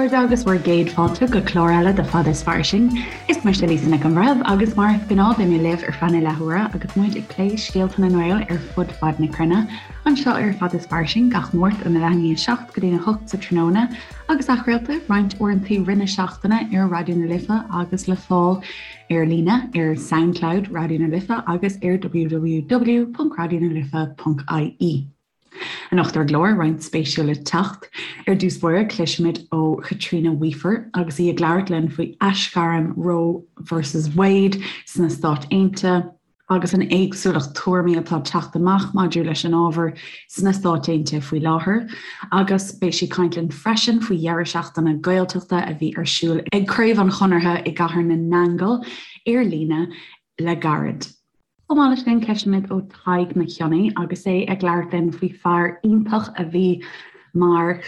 chairde agus bhur gcéad fáilte go clár eile de Fada is Fairsing. Is mise Lisa Nic an Bhreithimh agus mar is gnáth beidh mé libh ar feadh na leathuaire agus muid ag plé scéalta na nGael ar fud fad na cruinne, anseo ar Fada is Fairsing gach Máirt óna leath i ndiaidh 7 go dtí a 8 sa tráthnóna agus athchraolta roinnt uaireanta i rith na seachtaine ar Raidió na Life agus le fáil ar líne ar Soundcloud Raidió na Life agus ar www.radionalife.ie. Anocht ar an gclár, roinnt spéisiúil le teacht. Ar dtús báire, cloisfimid ó Chaitríona Weafer agus í ag labhairt linn faoi aisghairm Roe versus Wade sna Stáit Aontaithe agus an éagsúlacht tuairimí atá ag teacht amach maidir leis an ábhar sna Stáit Aontaithe faoi láthair. Agus beidh sí ag caint linn freisin faoi dheireadh seachtaine Gaeltachta a bhí ar siúl ag Craobh an Chonartha i gCathair na nAingeal ar líne le gairid. Chomh maith leis sin, cloisfimid ó Tadhg Mac Cionnaith agus é ag labhairt linn faoi fear iontach a bhí mar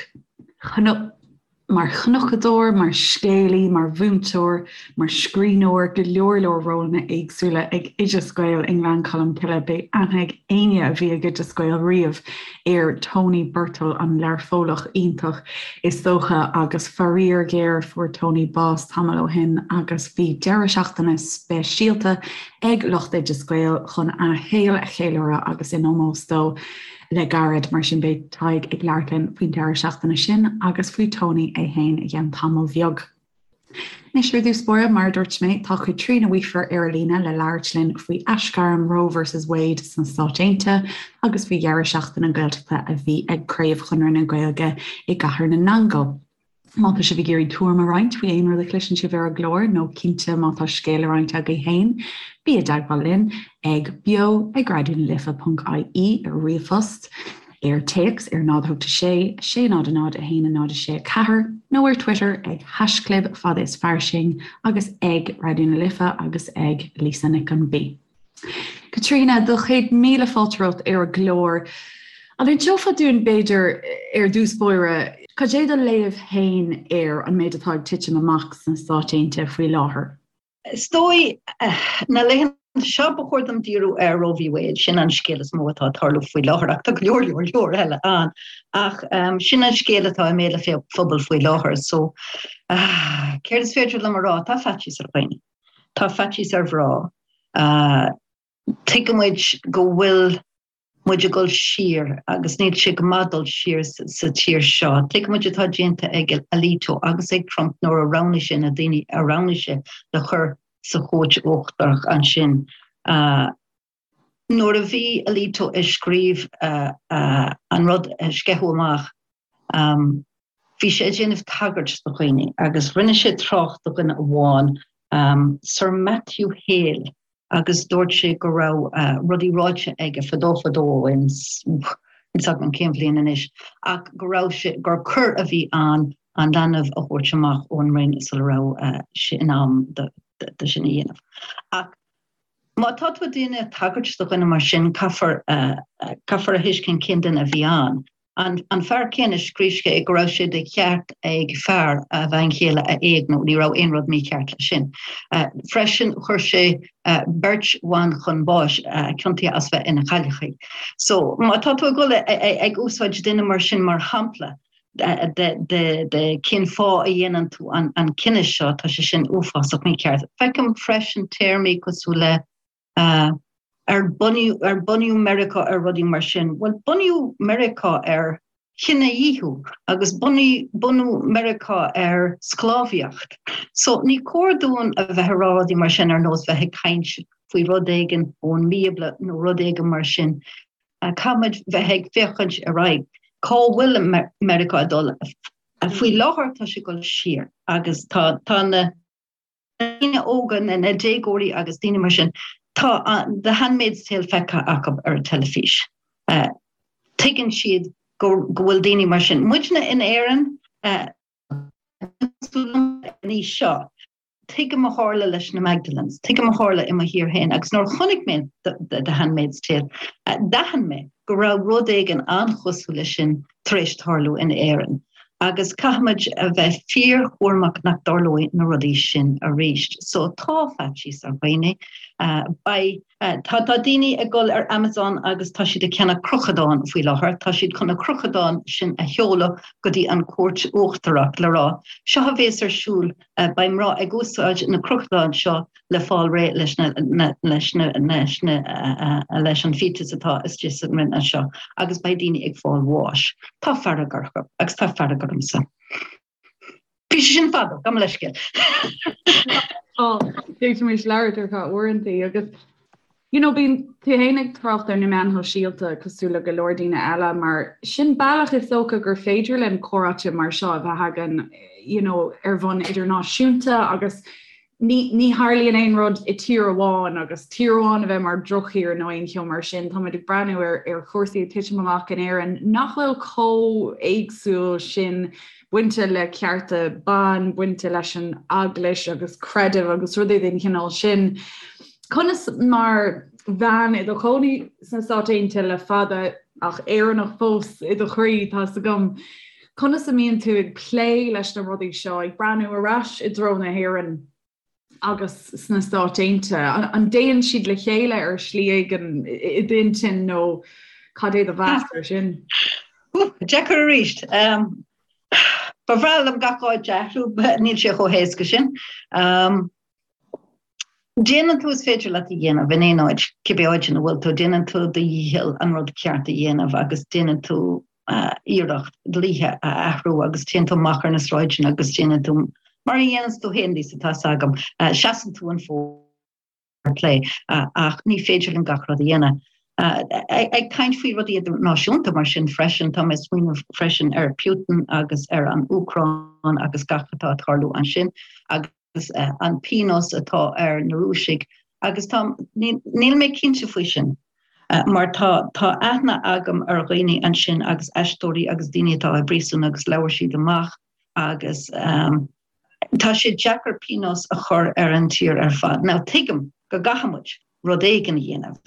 mar chnocadóir, mar scéalaí, mar mhúinteoir, mar scríbhneoir, go leor leor rólanna éagsúla ag Oideas Gael i nGleann Cholm Cille. Beidh aithne ag éinne a bhí ag Oideas Gael riamh ar Tony Birtill, an Learphollach iontach is dócha, agus faraor géar fuair Tony bás tamall ó shin agus bhí deireadh seachtaine speisialta ag lucht Oideas Gael chun a shaol a cheiliúradh agus in ómós dó le gairid. Mar sin beidh Tadhg ag labhairt linn faoin deireadh seachtaine sin agus faoi Tony é féin i gceann tamaill bheag. Anois ar dtús báire, mar a dúirt mé, tá Caitríona Weafer ar an líne le labhairt linn faoi aisghairm Roe versus Wade sna Stáit Aontaithe agus faoi dheireadh seachtaine Gaeltachta a bhí ag Craobh Chonradh na Gaeilge i gCathair na nAingeal. Má tá sibh ag iarraidh tuairim a roinnt faoi aon rud a chloiseann sibh ar an gclár nó cinnte má tá scéal le roinnt agaibh féin, bí i dteagmháil linn ag beo ag raidionalife.ie ar ríomhphost, ar téacs ar 0 8 6 6 0 0 1 0 6 4 nó ar Twitter ag haischlib fada is fairsing agus ag Raidió na Life agus ag Lisa Nic an B. Caitríona, do chéad míle fáilte romhat ar an gclár. An inseofá dúinn, b'fhéidir, ar dtús báire, cad é do léamh féin ar an méid atá ag titim amach sna Stáit Aontaithe faoi láthair? Is dóigh, na laethanta seo, ba chóir dom díriú ar Roe v. Wade, sin an scéal is mó atá ag tarlú faoi láthair, ach tá go leor, leor, leor eile ann. Ach sin an scéal atá i mbéal an phobail faoi láthair. So, céard is féidir liom a rá? Tá faitíos ar dhaoine. Tá faitíos ar mhná. Tuigimid go bhfuil muid ag dul siar agus níl sé go maith dul siar sa tír seo. Tuigimid atá déanta ag Alito agus ag Trump nuair a roghnaigh sé na daoine a roghnaigh sé le chur sa chúirt uachtarach ansin. Nuair a bhí Alito ag scríobh an rud a sceitheadh amach, Bhí sé ag déanamh tagairt do dhaoine agus rinne sé trácht do dhuine amháin, Sir Matthew Hale, agus dúirt sé go raibh rudaí ráite aige fadó fadó ó shin, níl 'fhios agam cén bhliain anois, ach go raibh sé, gur coir a bhí ann an leanbh a thabhairt amach ón mbroinn sula raibh sé in am do sin a dhéanamh. Ach má tá tú ag déanamh tagairt do dhuine mar sin, caithfear, caithfear a thuiscint cén duine a bhí ann. An fear céanna, scríobh sé go raibh sé de cheart ag fear a bhean chéile a éigniú, ní raibh aon rud mícheart leis sin. Freisin, chuir sé beirt bhan chun báis, ciontaithe as bheith ina chailleachaí. So, má tá tú ag dul ag úsáid duine mar sin mar shampla de cén fáth a dhéanann tú an cinneadh seo, tá sé sin uafásach mícheart. Feicim freisin téarmaí cosúil le Ar bunaíodh ar bunaíodh Meiriceá ar rudaí mar sin? Bhuel, bunaíodh Meiriceá ar chinedhíothú agus bunaíodh bunaíodh Meiriceá ar sclábhaíocht. So ní cóir dúinn a bheith ag rá rudaí mar sin ar nós bheith ag caint faoi rud éigin ón mBíobla nó rud éigin mar sin. Caithfimid bheith ag féachaint ar aghaidh. Cá bhfuil Meiriceá ag dul? Faoi láthair tá sé ag dul siar agus tá tá na daoine óga, na déagóirí agus daoine mar sin, tá The Handmaid's Tale feicthe acu ar an teilifís. Tuigeann siad go bhfuil daoine mar sin. Muidne in Éirinn, an aois seo, tuigim a tharla leis na Magdalens, tuigim a tharla i mo thír féin agus nuair a chonaic mé The Handmaid's Tale, d'aithin mé go raibh rud éigin an-chosúil leis sin tar éis tarlú in Éirinn. Agus caithfimid a bheith fíorchúramach nach dtarlóidh na rudaí sin arís. So tá faitíos ar dhaoine. Beidh, tá, tá daoine ag dul ar Amazon agus tá siad ag ceannach crochadán faoi láthair. Tá siad chun na crochadáin sin a sheoladh go dtí an Chúirt Uachtarach le rá, seo a bhéas ar siúl Beidh mná ag úsáid na crochadáin seo le fáil réidh leis na leis na leis na leis an fetus atá istigh sa mbroinn anseo agus beidh daoine ag fáil bháis. Tá fearg orthu agus tá fearg ormsa. Bhí sé sin fada, gabh mo leithscéal. D'fhéadfaimis labhairt ar feadh uaireanta agus You know, bíonn tú féin ag trácht ar na meáin shóisialta cosúil le go leor daoine eile mar sin bealach is dócha gur féidir linn comhráite mar seo a bheith againn you know, ar bhonn idirnáisiúnta agus ní, ní tharlaíonn aon rud i tír amháin agus tír amháin a bheith mar dhrochthír nó aon cheo mar sin. Táimid ag breathnú ar, ar chúrsaí ag titim amach in Éirinn nach bhfuil chomh éagsúil sin bainte le cearta ban, bainte leis an eaglais agus creideamh agus rudaí den chineál sin. Conas mar bhean i do chónaí sna Stáit Aontaithe le fada, ach Éireannach fós i do chroí, tá's agam, conas a mbíonn tú ag plé leis na rudaí seo, ag breathnú ar ais i dtreo na hÉireann agus sna Stáit Aontaithe? An dtéann siad le chéile ar shlí éigin i d'intinn nó cad é do mheas ar sin? Deacair arís. Ba bhreá liom gach áit a athrú, níl sé chomh héasca sin. Déanann tú is féidir leat a dhéanamh in aon áit, cibé áit ina bhfuil tú, déanann tú do dhícheall an rud ceart a dhéanamh agus déanann tú iarracht dlíthe a athrú agus téann tú amach ar na sráideanna agus déanann tú mar a dhéananns tú féin, Lisa, tá's agam, seasann tú an fód plé ach ní féidir linn gach rud a dhéanamh. Ag caint faoi rudaí idirnáisiúnta mar sin freisin, tá mé ag smaoineamh freisin ar Putin agus ar an Úcráin agus gach atá ag tarlú ansin agus an pionós atá ar na Rúisigh agus tá, níl mé cinnte faoi sin mar tá, tá aithne agam ar dhaoine ansin agus aisteoirí agus daoine atá i bpríosún agus labhair siad amach agus tá sé deacair pionós a chur ar an tír ar fad. Now tuigim go gcaithfidh muid rud éigin a dhéanamh.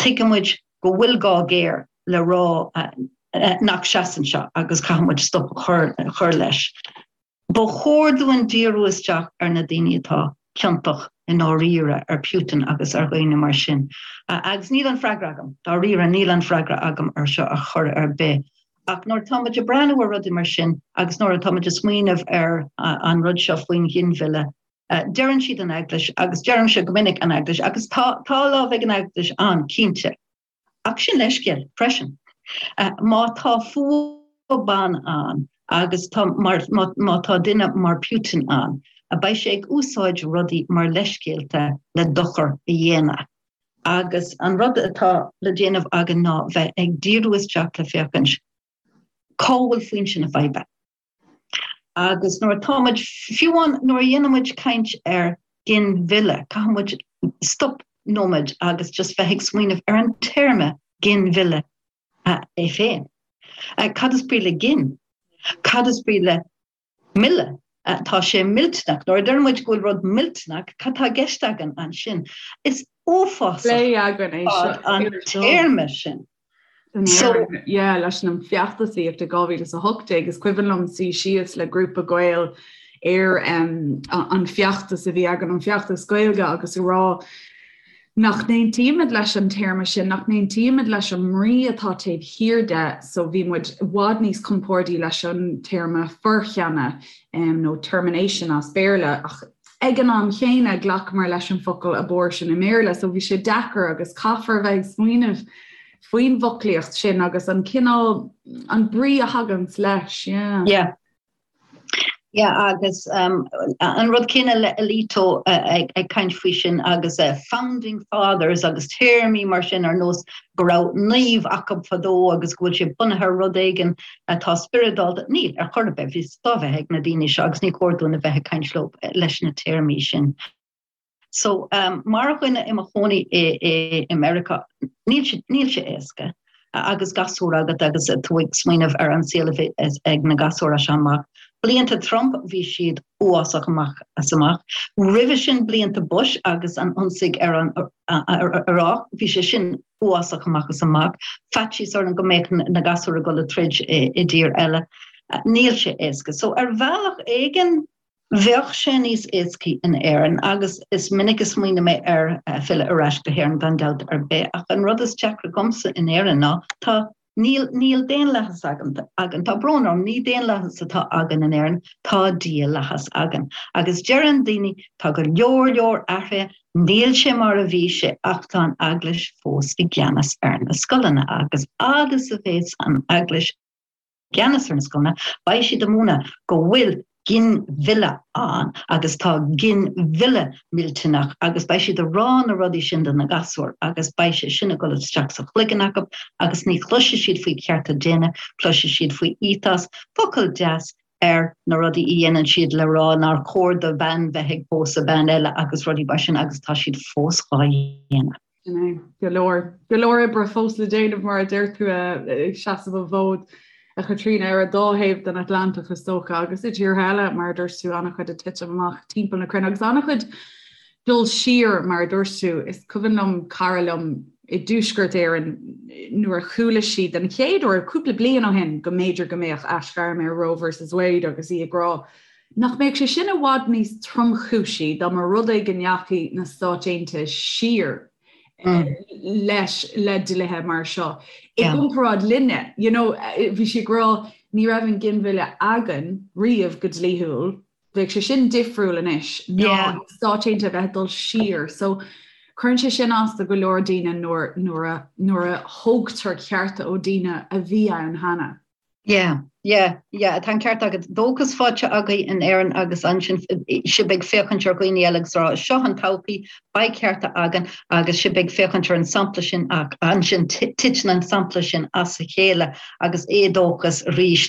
Tuigeann muid go bhfuil gá géar le rá nach seasann seo agus caithfidh muid stop a chur leis. Ba chóir dúinn díriú isteach ar na daoine atá ciontach i ndáiríre, ar Putin agus ar dhaoine mar sin. Agus níl an freagra agam, dáiríre, níl an freagra agam ar seo ar chor ar bith. Ach nuair atá muid ag breathnú ar rudaí mar sin agus nuair atá muid ag smaoineamh ar an rud seo faoin ghinmhilleadh, deireann siad an Eaglais agus deirimse go minic an Eaglais agus tá tá lámh ag an Eaglais ann, cinnte. Ach sin leithscéal freisin. Má tá fuath ban ann agus tá mar má tá duine mar Putin ann, beidh sé ag úsáid rudaí mar leithscéalta le dochar a dhéanamh. Agus an rud atá le déanamh againn ná bheith ag díriú isteach le féachaint cá bhfuil foinse na faidhbe. Agus nuair atá muid, fiú amháin nuair a dhéanann muid caint ar ginmhilleadh, caithfidh muid stop nóiméad agus just bheith ag smaoineamh ar an téarma ginmhilleadh é féin. Cad is brí le gin? Cad is brí le milleadh? Tá sé millteanach. Nuair a deireann muid go bhfuil rud millteanach, cad tá i gceist againn ansin? Is uafásach an téarma sin. So, yeah, leis an feachtasaíocht i 2018 is cuimhin liom suí síos le grúpa Gael ar um, an feachtas a bhí againn an feachtas Gaeilge agus a rá nach n-aontaímid leis an téarma sin, nach n-aontaímid leis an mbrí atá taobh thiar de, so bhí muid i bhfad níos compordaí leis an téarma foirceannadh um, nó termination as Béarla ach ag an am chéanna ghlacamar leis an focal abortion i mBéarla so bhí sé deacair agus caithfear a bheith ag smaoineamh faoin bhfoclaíocht sin agus an cineál an brí a thaganns leis. Yeah. Yeah. Yeah, agus um, an rud céanna le Alito uh, ag, ag caint faoi sin agus uh, founding fathers agus téarmaí mar sin ar nós go raibh naomh acu fadó agus go bhfuil sé bunaithe ar rud éigin atá spioradálta. Níl, ar chor ar bith, bhí stop ag na daoine seo agus ní chóir dúinn a bheith ag caint leo leis na téarmaí sin. So, um, mar dhuine i mo chónaí i, i, i Meiriceá, níl sé, níl sé éasca agus gasúr agat agus tú ag smaoineamh ar an saol a bhí ag na gasúir as seo amach. Blianta Trump bhí siad uafásach amach as amach. Roimhe sin blianta Bush agus an ionsaí ar an Iaráic, bhí sé sin uafásach amach as amach. Faitíos orainn go mbeadh na gasúir ag dul ag troid i dtír eile. Níl sé éasca. So ar bhealach éigin bheadh sé níos éascaí in Éirinn agus is minic a smaoinigh mé ar filleadh ar ais go hÉirinn gan dabht ar bith ach an rud is deacra dhomsa in Éirinn ná tá Níl, níl daonlathas againn, againn. Tá brón orm, ní daonlathas atá againn in Éirinn, tá dialathas againn. Agus deireann daoine, tá go leor, leor athraithe, níl sé mar a bhí sé ach tá an Eaglais fós i gceannas ar na scoileanna agus fhad is a bhéas an Eaglais i gceannas ar na scoileanna, beidh siad ag múineadh go bhfuil ginmhilleadh ann agus tá ginmhilleadh millteanach agus beidh siad ag rá na rudaí sin do na gasúir agus beidh sé sin ag dul isteach sa chloigeann acu agus ní chloisfidh siad faoi chearta daonna, cloisfidh siad faoi ethos, focal deas ar na rudaí a dhéanann siad le rá nár chóir do bhean bheith ag pósadh bean eile agus rudaí mar sin agus tá siad fós dhá dhéanamh. Sin é. Go leor, go leor oibre fós le déanamh mar a deir tú ag seasamh an fhóid, a Chaitríona, ar an dá thaobh den Atlantach is dócha agus i dtíortha eile mar a dúirt tú, an-chuid ag titim amach timpeall na cruinne agus an-chuid dul siar mar a dúirt tú. Is cuimhin liom cara liom i dTuaisceart Éireann nuair a chuala sí den chéad uair cúpla bliain ó shin go mb'fhéidir go mbeadh aisghairm ar Roe versus Wade agus í ag rá Nach mbeadh sé sin i bhfad níos tromchúisí dá mba rud é go ndeachaigh na Stáit Aontaithe siar leis le dlíthe mar seo i gcomparáid linne? You know, bhí sí ag rá ní raibh an ginmhilleadh againn riamh go dlíthiúil, bheadh sé sin difriúil anois ná na Stáit Aontaithe a bheith ag dul siar. So cuireann sé sin as do go leor daoine nuair, nuair a, nuair a thógtar cearta ó daoine a bhí ann cheana. Yeah, yeah, yeah, tá an ceart agat. Dóchas faighte agaibh in Éirinn agus ansin sibh ag féachaint ar dhaoine eile agus rá seo an todhchaí, beidh cearta againn agus sibh ag féachaint ar an sampla sin ach ansin titeann an sampla sin as a chéile agus éadóchas arís.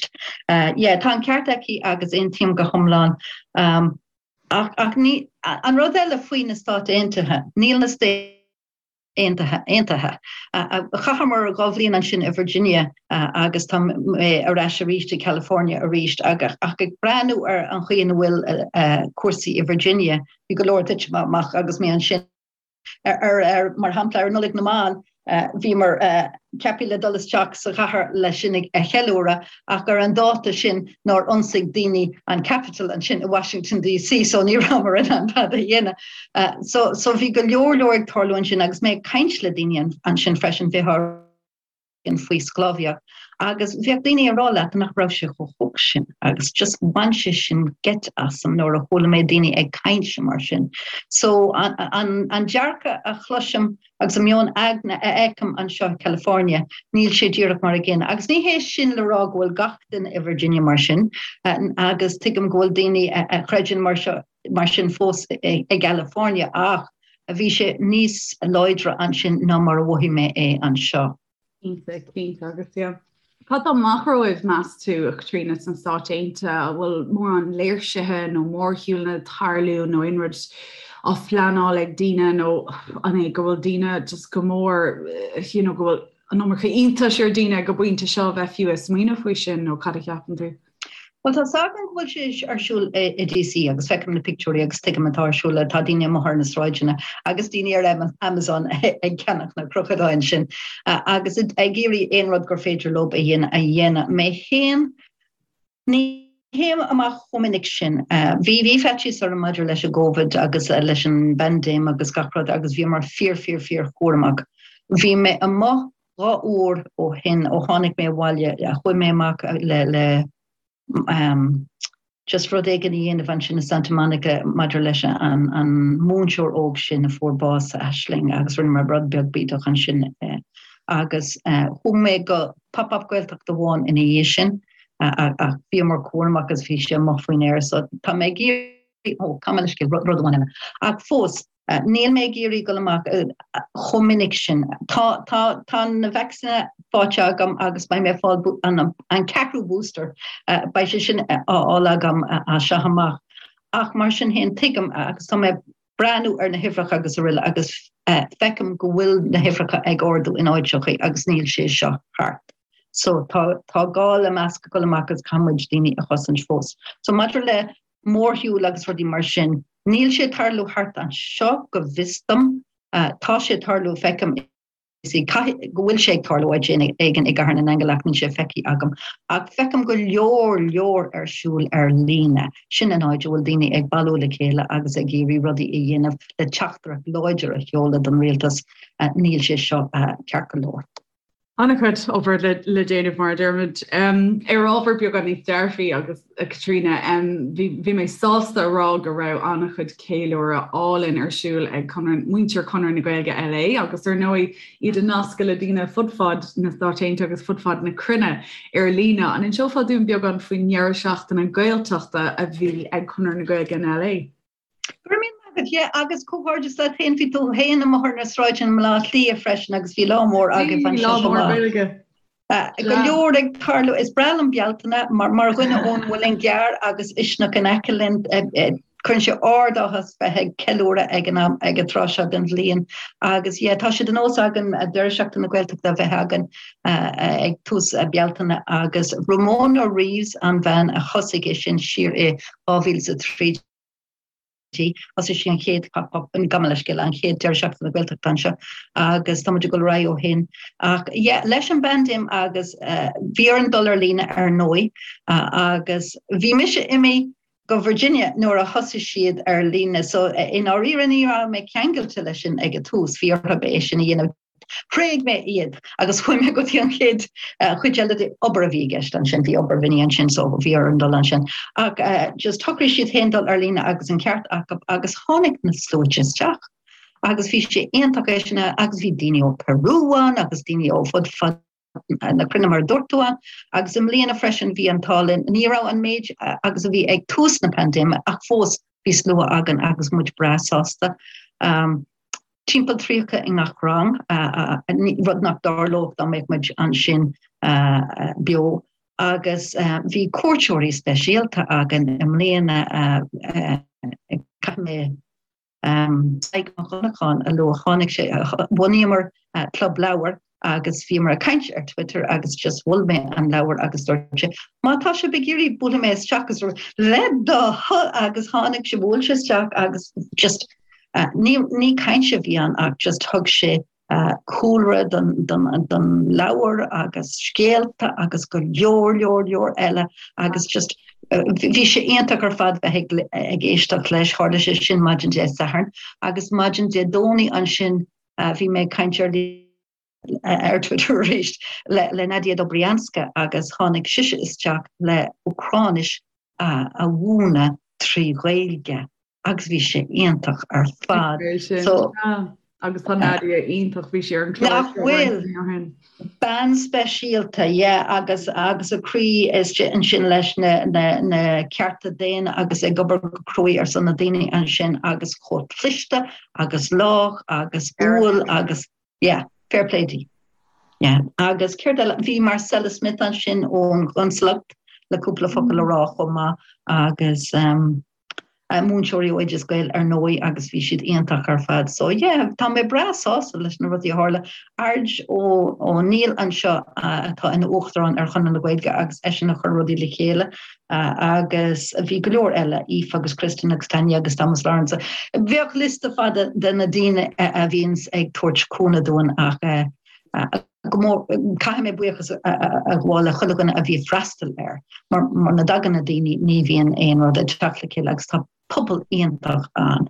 Yeah, tá an ceart aici agus aontaím go hiomlán. Um, ach, ach ní, an rud eile faoi na Stáit Aontaithe, níl na Stáit Aontaithe aontaithe. Chaitheamar 2 bhliain ansin i Virginia agus tá mé ar ais arís i California arís ach ag breathnú ar an chaoi ina bhfuil cúrsaí i Virginia, bhí go leor titim amach agus mé ansin. Ar, mar shampla, ar Nollaig na mBan, bhíomar ceaptha le dul isteach sa chathair le sin a cheiliúradh ach ar an dáta sin nár ionsaigh daoine an Capitol ansin i Washington DC so ní rabhamar in ann tada a dhéanamh. So so bhí go leor leor ag tarlú ansin agus mé ag caint le daoine ansin freisin bheadh faoi sclábhaíocht agus bheadh daoine ag rá leat nach raibh sé chomh holc sin agus just bhain sé sin geit asam nuair a chuala mé daoine ag caint mar sin. So an, an, an dearcadh a chloisim Agus an meon aigne a fheicim anseo i California, níl sé díreach mar an gcéanna. Agus ní hé sin le rá go bhfuil gach duine i Virginia mar sin, agus tuigim go bhfuil daoine a chreideann mar seo, mar sin fós i gCalifornia, ach bhí sé níos láidre ansin ná mar a mhothaigh mé é anseo. Cinnte, cinnte, agus yeah. Cad tá amach romhaibh, meas tú, a Chaitríona, sna Stáit Aontaithe? An bhfuil mórán léirsithe nó mórshiúlanna ag tarlú nó aon rud á phleanáil ag daoine nó an é go bhfuil daoine just go mór, you know, go bhfuil an iomarca iontais ar daoine ag an bpointe seo a bheith fiú ag smaoineamh faoi sin nó cad a cheapann tú? Bhuel, tá 's agam go bhfuil sé ar siúl i DC agus feicim na pictiúirí agus tuigim atá ar siúl, tá daoine amuigh ar na sráideanna agus daoine ar Amazon ag ceannach na crochadáin sin agus ag iarraidh aon rud gur féidir leo a dhéanamh a dhéanamh. Mé féin, ní théim amach chomh minic sin. Bhí bhí faitíos orm maidir leis an gCovid agus leis an bpaindéim agus gach rud agus bhíomar fíor fíor fíor chúramach. Bhí mé amuigh 2 uair ó shin, ó tháinig mé abhaile, chuaigh mé amach le le just rud éigin a dhéanamh ansin i Santa Monica maidir leis an an múinteoir óg sin a fuair bás, Aisling, agus rinne mé rud beag bídeach ansin agus chuaigh mé go pop-up Gaeltacht amháin ina dhiaidh sin ach bhíomar cúramach agus bhí sé amuigh faoin aer so tá mé ag iarraidh, ó, gabh mo leithscéal, rud amháin eile. Ach fós, Níl mé ag iarraidh dul amach chomh minic sin. Tá, tá, tá na vacsaíní faighte agam agus beidh mé ag fáil an, an ceathrú booster, beidh sé sin á fháil agam as seo amach. Ach mar sin féin, tuigim agus tá mé ag breathnú ar na huimhreacha agus araile agus feicim go bhfuil na huimhreacha ag ardú in áiteachaí agus níl sé seo thart. So tá, tá gá le masc a dhul amach agus caithfidh muid daoine a chosaint fós. So maidir le mórshiúil agus rudaí mar sin. Níl sé ag tarlú thart anseo go bhfios dom. Tá sé ag tarlú, feicim. Caithfidh go bhfuil sé ag tarlú áit éigin i gCathair na nAingeal ach níl sé feicthe agam. Ach feicim go leor leor ar siúl ar líne. Sin an áit a bhfuil daoine ag bailiú le chéile agus ag iarraidh rudaí a dhéanamh le teachtaireacht láidir a sheoladh don rialtas, níl sé seo ceart go leor. An-chuid obair le déanamh mar a deirimid. Ar ábhar beagán níos dearfaí agus a Chaitríona, bhí mé sásta a rá go raibh an-chuid ceiliúradh álainn ar siúl ag Conradh, muintir Chonradh na Gaeilge LA agus ar ndóigh iad ag nascadh le daoine fud fad na Stáit Aontaithe agus fud fad na cruinne ar líne. An inseofá dúinn beagán faoin ndeireadh seachtaine Gaeltachta a bhí ag Conradh na Gaeilge in LA? Go raibh míle maith agat, yeah, agus comhghairdeas leat féin, bhí tú féin amuigh ar na sráideanna i mBaile Átha Cliath freisin agus bhí lá mór agaibh ansin. Lá mór Gaeilge. Go leor ag tarlú, is breá liom Bealtaine mar mar dhuine ón Mhuileann gCearr agus Uisneach in aice linn, cuireann sé ard-áthas bheith ag ceiliúradh ag an am ag an tráth seo den bhliain agus yeah, tá sé de nós againn deireadh seachtaine na Gaeltachta a bheith againn ag tús Bealtaine agus Ramona Reeves an bhean a thosaigh é sin siar i 2013. Thosaigh sí an chéad pop-up, gabh mo leithscéal, an chéad deireadh seachtaine na Gaeltachta anseo agus tá muid ag dul ar aghaidh ó shin. Ach yeah, leis an bpaindéim agus bhí orainn dul ar líne ar ndóigh agus bhí mise imithe go Virginia nuair a thosaigh siad ar líne so i ndáiríre ní raibh mé ceangailte leis sin ag an tús, bhí orthu é sin a dhéanamh. Thréig mé iad agus chuaigh mé go dtí an chéad chuid eile de obair a bhí i gceist ansin, bhí obair mhini ansin so bhí orm dul ansin. Ach just shocraigh siad féin dul ar líne agus an ceart acu agus tháinig na sluaite isteach agus bhí sé iontach é sin agus bhí daoine ó Peru ann agus daoine ó fud fad na cruinne mar a dúirt tú ann agus i mbliana freisin bhí an t-ádh linn, ní raibh an méid agus a bhí ag tús na paindéime ach fós bhí slua againn agus muid breá sásta. Um, Timpeall 30 i ngach rang, rud nach dtarlódh dá mbeadh muid ansin beo. Agus bhí cuairteoirí speisialta againn i mbliana, caithfidh mé Tadhg Mac Dhonnacháin a lua, tháinig sé, bhunaíomar club leabhar agus bhíomar ag caint ar Twitter agus just mhol mé an leabhar agus dúirt sé, má tá sibh ag iarraidh buailfidh mé isteach agus le do thoil agus tháinig sé, bhuail sé isteach agus just ní, ní caint a bhí ann ach just thug sé cúlra don, don, don leabhar agus scéalta agus go leor, leor, leor eile agus just bhí sé iontach ar fad bheith ag, ag éisteacht leis, tharla sé sin maidin Dé Sathairn agus maidin Dé Domhnaigh ansin Bhí mé ag caint ar ar Twitter arís le le Nadia Dobrianska agus tháinig sise isteach le Úcráinis a mhúineadh trí Ghaeilge agus bhí sé iontach ar fad. So agus tá Nadia iontach bhí sí ar an chlár Nach bhfuil? Bean speisialta, yeah, agus agus a croí istigh ansin leis na na na cearta daonna agus ag obair go cruaidh ar son na daoine ansin agus chomh cliste agus lách agus umhal agus yeah, fair play di. Yeah. Agus céard eile, bhí Marcella Smith ansin ón gconsalacht le cúpla focal a rá chomh maith agus um, múinteoirí ó Oideas Gael ar ndóigh agus bhí siad iontach ar fad. So yeah, tá mé breá sásta leis na rudaí a tharla. Ard Ó Ó Neill anseo atá ina uachtarán ar Chonradh na Gaeilge agus eisean a chuir rudaí le chéile agus bhí go leor eile, Aoife agus Kristin agus Tanya agus Thomas Lawrence. Bheadh liosta fada de na daoine a bhíonns ag tabhairt cúnamh dúinn ach go mór, caithfidh mé buíochas a ghabháil le chuile dhuine a bhí ag freastal air, mar muna dtagann na daoine ní bhíonn aon rud ag teacht le chéile agus tá pobal iontach ann.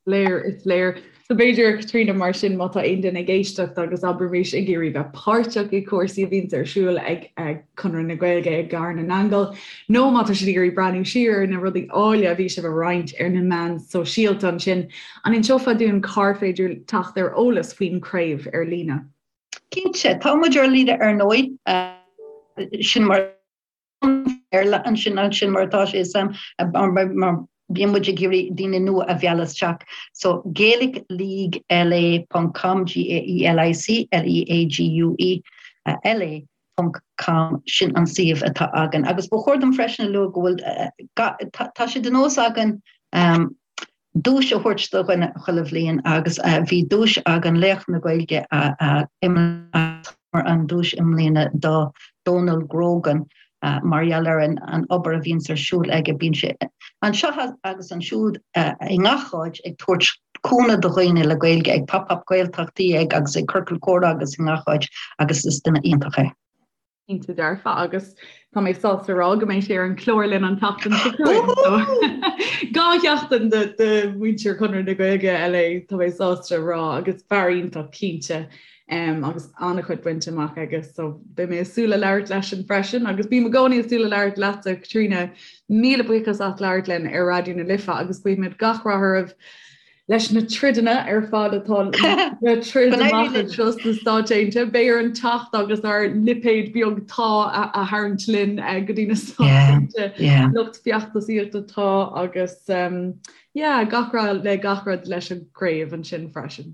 Léir, is léir. So b'fhéidir, Caitríona, mar sin, má tá aon duine ag éisteacht agus abraimis ag iarraidh bheith páirteach i gcúrsaí a bhíonns ar siúl ag Conradh na Gaeilge i gCathair na nAingeal, nó má tá siad ag iarraidh breathnú siar ar na rudaí áille a bhí sibh a roinnt ar na meáin sóisialta ansin, an inseofá dúinn cár féidir teacht ar eolas faoin chraobh ar líne? Cinnte, tá muid ar líne ar ndóigh, sin mar Béarla ansin ansin mar atá sé sam mar bíonn muid ag iarraidh daoine nua a mhealladh isteach. So Gaelic League LA ponc com G A E L I C L E A G U E L A ponc com sin an suíomh atá againn. Agus ba chóir dom freisin a lua go bhfuil tá sé de nós againn duais a thabhairt do dhuine chuile bhliain agus bhí duais againn Laoch na Gaeilge an duais i mbliana do Dónal Grogan mar gheall ar an obair a bhíonns ar siúl aige. Bíonn sé anseo agus ansiúd i ngach áit ag tabhairt. cúnamh do dhaoine le Gaeilge ag Pop Up Gaeltachtaí ag agus ag Ciorcal Comhrá agus i ngach áit agus is duine iontach é. Cinnte dearfa agus tá mé sásta rá go mbeidh sé ar an chlár linn an tseachtain seo chugainn. 2 sheachtain de mhuintir Chonradh na Gaeilge LA tá mé sásta rá agus fear iontach cinnte um, agus an-chuid bainte amach aige so beidh mé ag súil le labhairt leisean freisin agus bím i gcónaí ag súil le labhairt leatsa Caitríona míle buíochas as labhairt linn ar Raidió na Life agus guímid gach rath oraibh leis na troideanna ar fad atá le troid amach anseo sna Stáit Aontaithe. Beidh orainn teacht agus ár lipéad beag tá a tharraingt linn eh, go dtí na Stáit Aontaithe lucht feachtasaíochta tá agus um, yeah, gach rath le gach rud leis an gcraobh ansin freisin.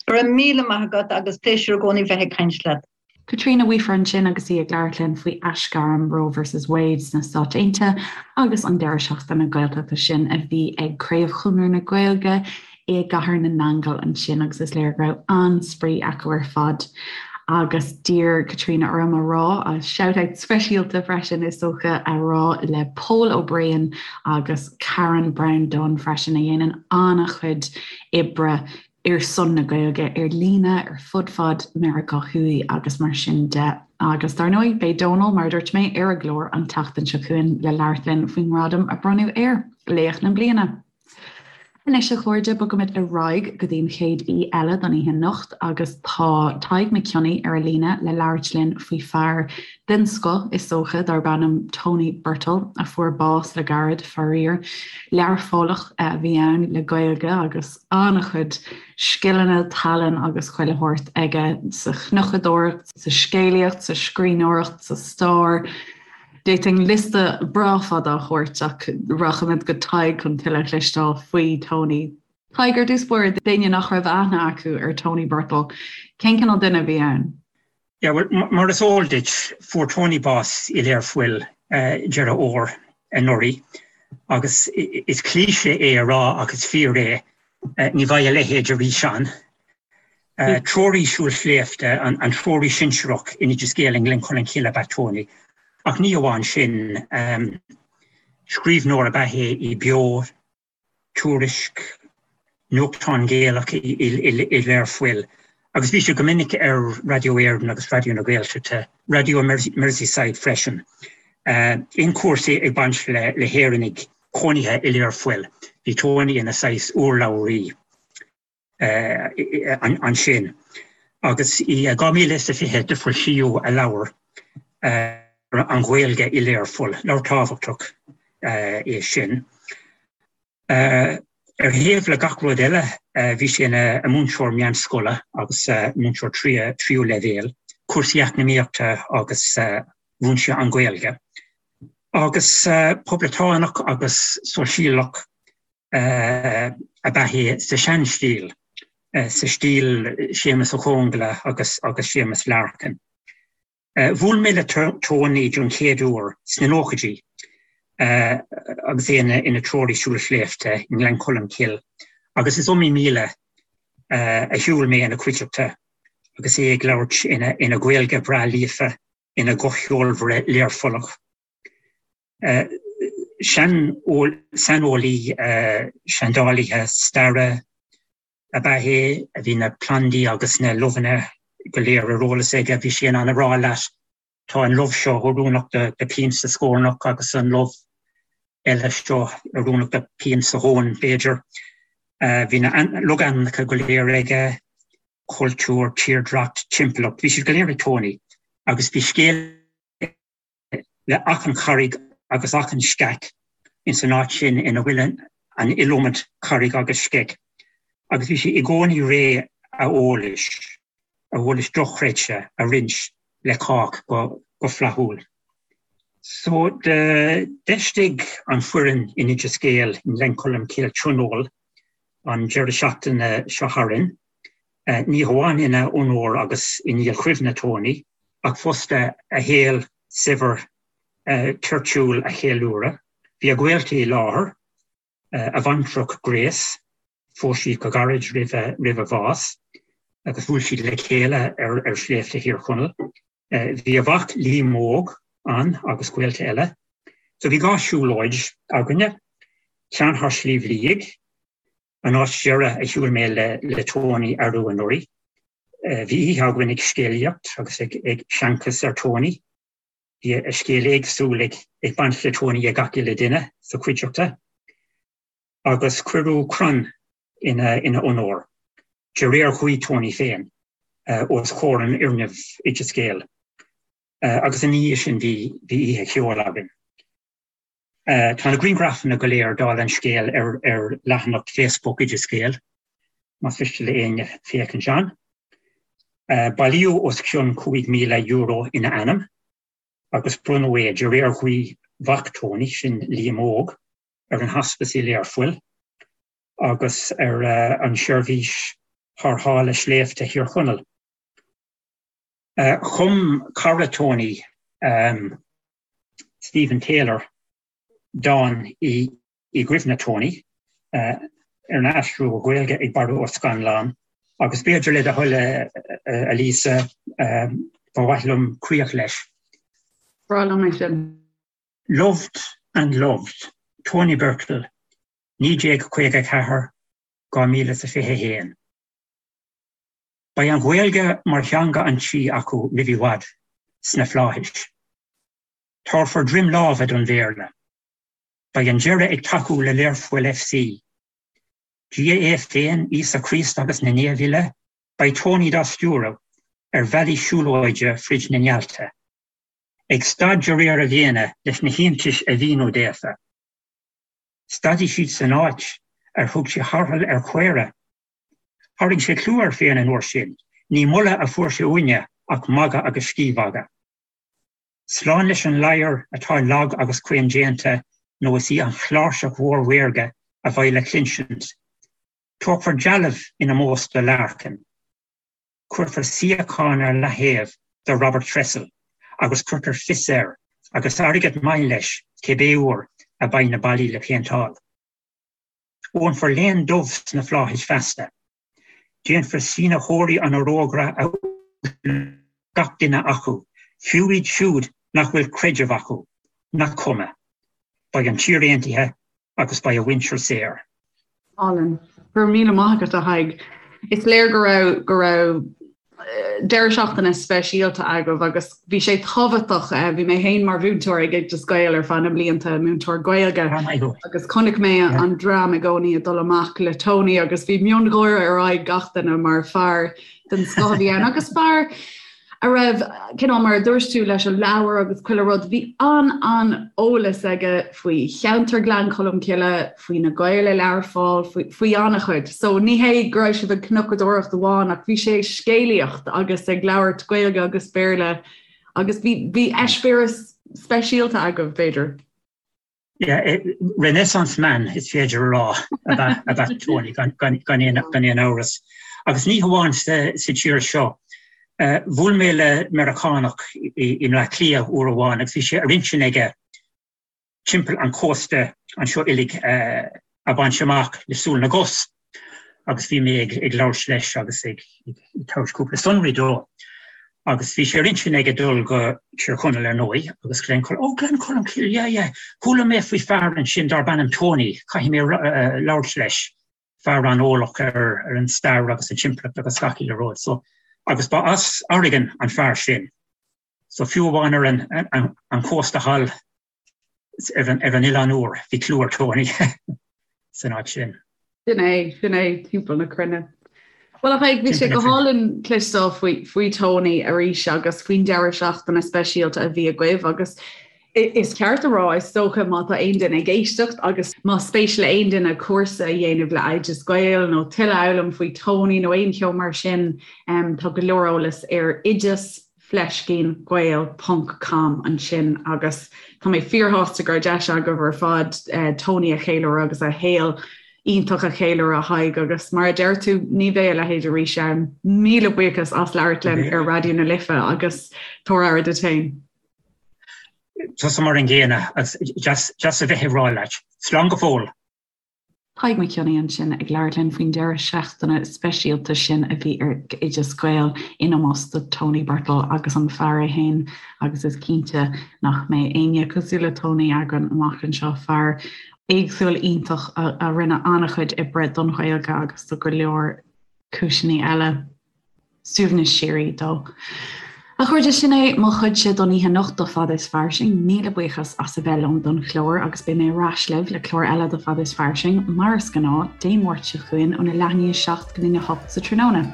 Go raibh míle maith agat agus pléisiúr i gcónaí bheith ag caint leat. Caitríona Weafer ansin agus í ag labhairt linn faoi aisghairm Roe versus Wade sna Stáit Aontaithe agus an deireadh seachtaine Gaeltachta sin a bhí ag Craobh Chonradh na Gaeilge i gCathair na nAingeal ansin agus is léir go raibh an-spraoi acu ar fad. Agus d'iarr Caitríona orm a rá, shout-out speisialta freisin is dócha a rá le Pól Ó Briain agus Karen Brown Dunne freisin a dhéanann an-chuid oibre ar son na Gaeilge ar líne ar fud fad Meiriceá Thuaidh agus mar sin de. Agus dar ndóigh, beidh Dónal, mar a dúirt mé, ar an gclár an tseachtain seo chugainn le labhairt linn faoin ngradam a bronnadh air, Laoch na Bliana. Anois, a chairde, bogaimid ar aghaidh go dtí an chéad aoi eile don oíche anocht agus tá Tadhg Mac Cionnaith ar an líne le labhairt linn faoi fear den scoth, is dócha, darb ainm Tony Birtill, a fuair bás le gairid, faraor. Learphollach a bhí ann le Gaeilge agus an-chuid scileanna, tallann agus chuile shórt aige sa chnocadóireacht, sa scéalaíocht, sa scríbhneoireacht, sa stair. D'fhéadfainn liosta breá fada a thabhairt ach rachaimid go Tadhg chun tuilleadh a chloisteáil faoi Tony. Tadhg, ar dtús báire, d'éinne nach raibh aithne acu ar Tony Birtill, cén cineál duine a bhí ann? Yeah, well, mar is eol duit, fuair Tony bás i Learpholl Deireadh Fhómhair anuraidh agus is cliché é a rá ach is fíor é, ní bheidh a leithéid arís ann. Treoraí siúil sléibhte, an treoraí sinsearach in Oideas Gael i nGleann Cholm Cille ab ea Tony. Ach ní amháin sin, scríbhneoir ab ea é i Beo, Tuairisc, nuachtán Gaelach i Learpholl, agus bhí sé go minic ar Raidió Éireann agus Raidió na Gaeltachta, Raidió Merseyside freisin. Aon chúrsaí ag baint le hÉireannaigh cónaithe i Learpholl, bhí Tony ina saghas urlabhraí. ansin. Agus i 2020 do foilsíodh a leabhar An Ghaeilge i Learpholl, leabhar tábhachtach é sin. Ar thaobh le gach rud eile bhí sé ina mhúinteoir meánscoile agus múinteoir tríú leibhéal, cúrsaí eacnamaíochta agus mhúin sé an Ghaeilge. Agus poblachtánach agus sóisialach ab ea é sa seanstíl, sa stíl Séamus Ó Conghaile agus agus Séamus Larkin. Bhuail mé le Tony don chéad uair sna nóchaidí agus é ina treoraí siúil sléibhte i nGleann Cholm Cille agus is iomaí míle a shiúil mé ina chuideachta agus é ag labhairt ina Ghaeilge bhreá líofa, ina ghuth cheolmhar Learphollach. Saineolaí seandálaithe staire ab ea é, a bhí na plandaí agus na luibheanna go léir ar eolas aige. Bhí sé in ann a rá leat, tá an luibh seo oiriúnach do pian sa scornach agus an luibh eile seo oiriúnach do pian sa thóin, b'fhéidir. Bhí na logainmneacha go léir aige, cultúr, tírdhreach, timpeallacht, bhí siad go léir ag Tony agus bhí scéal le achan charraig agus achan sceach ins an áit sin ina bhfuil an iliomad carraig agus sceach agus bhí sé i gcónaí réidh a eolais, a eolais dochreidte a roinnt le cách go flaithiúil. So d'fheistigh an foireann in Oideas Gael i nGleann Cholm Cille tionól an deireadh seachtaine seo tharainn, ní hamháin ina onóir agus i ndílchuimhne Tony, ach fosta a shaol saibhir toirtiúil a cheiliúradh. Bhí a ghaolta i láthair, a bhaintreach Grace, phós siad go gairid roimh a bhás agus bhuail siad le chéile ar shléibhte Thír Chonaill. Bhí a mhac Liam Óg ann agus gaolta eile. So bhí 2 siúlóid againne, ceann thar Sliabh Liag. An áit deiridh a shiúil mé le Tony arú anuraidh, bhí oíche againn ag scéalaíocht agus ag seanchas ar Tony. Bhí a scéal éagsúil ag baint le Tony ag gach uile duine sa chuideachta. Agus cuireadh crann ina onóir, de réir ghuí Tony féin, os comhair an fhoirgnimh Oideas Gael. Agus ina dhiaidh sin bhí oíche cheoil againn. Tá na grianghrafanna go léir, dála an scéil, ar leathanach Facebook Oideas Gael, más mhiste le éinne féachaint ann. Bailíodh os cionn €5,000 ina ainm agus bronnadh é, de réir ghuí mhac Tony, sin Liam Óg, ar an Hospice i Learpholl agus ar an Seirbhís Tharrthála Sléibhte Thír Chonaill. Chum cara Tony, Stephen Taylor, dán i gcuimhne Tony, arna aistriú go Gaeilge ag Barra Ó Scannláin, agus b'fhéidir le do thoil, a Lisa, ba mhaith liom críoch leis. Breá liom é sin. Loved and Loved, Tony Birtill, 1954, 2021. Beidh an Ghaeilge mar theanga an tí acu roimh i bhfad, sna flaithis. Tabharfar droim láimhe don Bhéarla. Beidh an deireadh ag tacú le Learpholl FC. Dia é féin, Íosa Críost agus na naoimh uile, beidh Tony dá stiúradh ar bhealaí siúlóide frid na néalta. Ag stad de réir a mhéine leis na hiontais a mhíniú daofa. Stadfaidh siad san áit ar thug sé tarrtháil ar chaora. Tharraing sé clú air féin an uair sin, ní moladh a fuair sé uainne ach magadh agus scíthmhagadh. Slán leis an ladhar atá lag agus caoindéanta nó is í an chláirseach mhór mhaorga a bheidh le cluinsint. Tógfar dealbh in ómós do Larkin. Cuirfear suíochán ar leaththaobh do Robert Tressell agus cuirfear fios air, agus airgead maith leis, cibé uair a bheidh na ballaí le péinteáil. Ólfar léan dubh sna flaithis feasta. Déanfar sínitheoirí an fhorógra a uaisliú gach duine acu, fiú iad siúd nach bhfuil creideamh acu, nach cuma. Beidh an tír aontaithe agus beidh a mhuintir saor. Álainn. Go raibh míle maith agat, a Thaidhg. Is léir go raibh go raibh deireadh seachtaine speisialta agaibh agus bhí sé tábhachtach, bhí mé féin mar mhúinteoir ag Oideas Gael ar feadh na mblianta, múinteoir Gaeilge, agus chonaic mé an dream i gcónaí ag dul amach le Tony agus bhí miongháire ar aghaidh gach duine mar fear den scoth a bhí ann agus fear a raibh, cineál mar a dúirt tú leis an leabhar agus chuile rud, bhí an-an-eolas aige faoi cheantar Ghleann Cholm Cille, faoi na Gaeil i Learpholl, faoi, faoi an-chuid. So ní hé go raibh sibh ag cnocadóireacht amháin ach bhí sé ag scéalaíocht agus ag labhairt Gaeilge agus Béarla agus bhí, bhí eispéireas speisialta agaibh, b'fhéidir. Yeah, Renaissance man is féidir a rá ab ea Tony gan aon amhras. Agus ní hamháin sa tír seo. Bhuail mé le Meiriceánach i mBleá Cliath uair amháin agus bhí sé ar intinn aige timpeall an chósta anseo uilig a bhaint amach le súil na gcos. Agus bhí mé ag labhairt leis agus ag tabhairt cúpla sonraí dó. Agus bhí sé ar intinn aige dul go Tír Chonaill ar ndóigh agus Gleann Cholm, oh Gleann Cholm Cille, yeah, yeah, chuala mé faoi fear ansin darb ainm Tony, caithfidh mé labhairt leis, fear an-eolach ar an stair agus an timpeallacht agus gach uile rud. So, agus ba as Oregon an fear sin. So fiú amháin ar an chósta thall ar an Oileán Úr, bhí clú ar Tony san áit sin. Sin é, sin é, timpeall na cruinne. Bhuel a Thaidhg, bhí sé go hálainn cloisteáil faoi, faoi Tony arís agus faoin deireadh seachtaine speisialta a bhí agaibh agus is ceart a rá, is dócha, má tá aon duine ag éisteacht agus más spéis le aon duine cúrsa a dhéanamh le Oideas Gael nó tuilleadh a fhoghlaim faoi Tony nó aon cheo mar sin, tá go leor eolas ar oideas fleiscín gael ponc com ansin agus tá mé fíorshásta go raibh deis agaibh ar fad Tony a cheiliúradh agus a shaol iontach a cheiliúradh a Thaidhg agus mar a deir tú ní bheidh a leithéid arís ann. Míle buíochas as labhairt linn ar Raidió na Life agus tabhair aire duit féin. Tusa mar an gcéanna agus deas a bheith ag rá leat. Slán go fóill! Tadhg Mac Cionnaith ansin ag labhairt linn faoin deireadh seachtaine speisialta sin a bhí ar Oideas Gael in ómós do Tony Birtill agus an fear é féin agus is cinnte nach mbeidh éinne cosúil le Tony againn amach anseo, fear. Éagsúil iontach a rinne an-chuid oibre don Ghaeilge agus do go leor cúiseanna eile. Suaimhneas síoraí dó. A chairde, sin é mo chuidse don oíche anocht do Fada is Fairsing. Míle buíochas as a bheith liom don chlár agus beidh mé ar ais libh le clár eile de Fada is Fairsing, mar is gnáth, Dé Máirt seo chugainn óna leath i ndiaidh 7 go dtína 8 sa tráthnóna.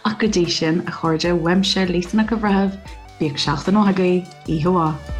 Ach go dtí sin, a chairde, uaimse, Lisa Nic an Bhreithimh, bíodh seachtain mhaith agaibh, oíche mhaith.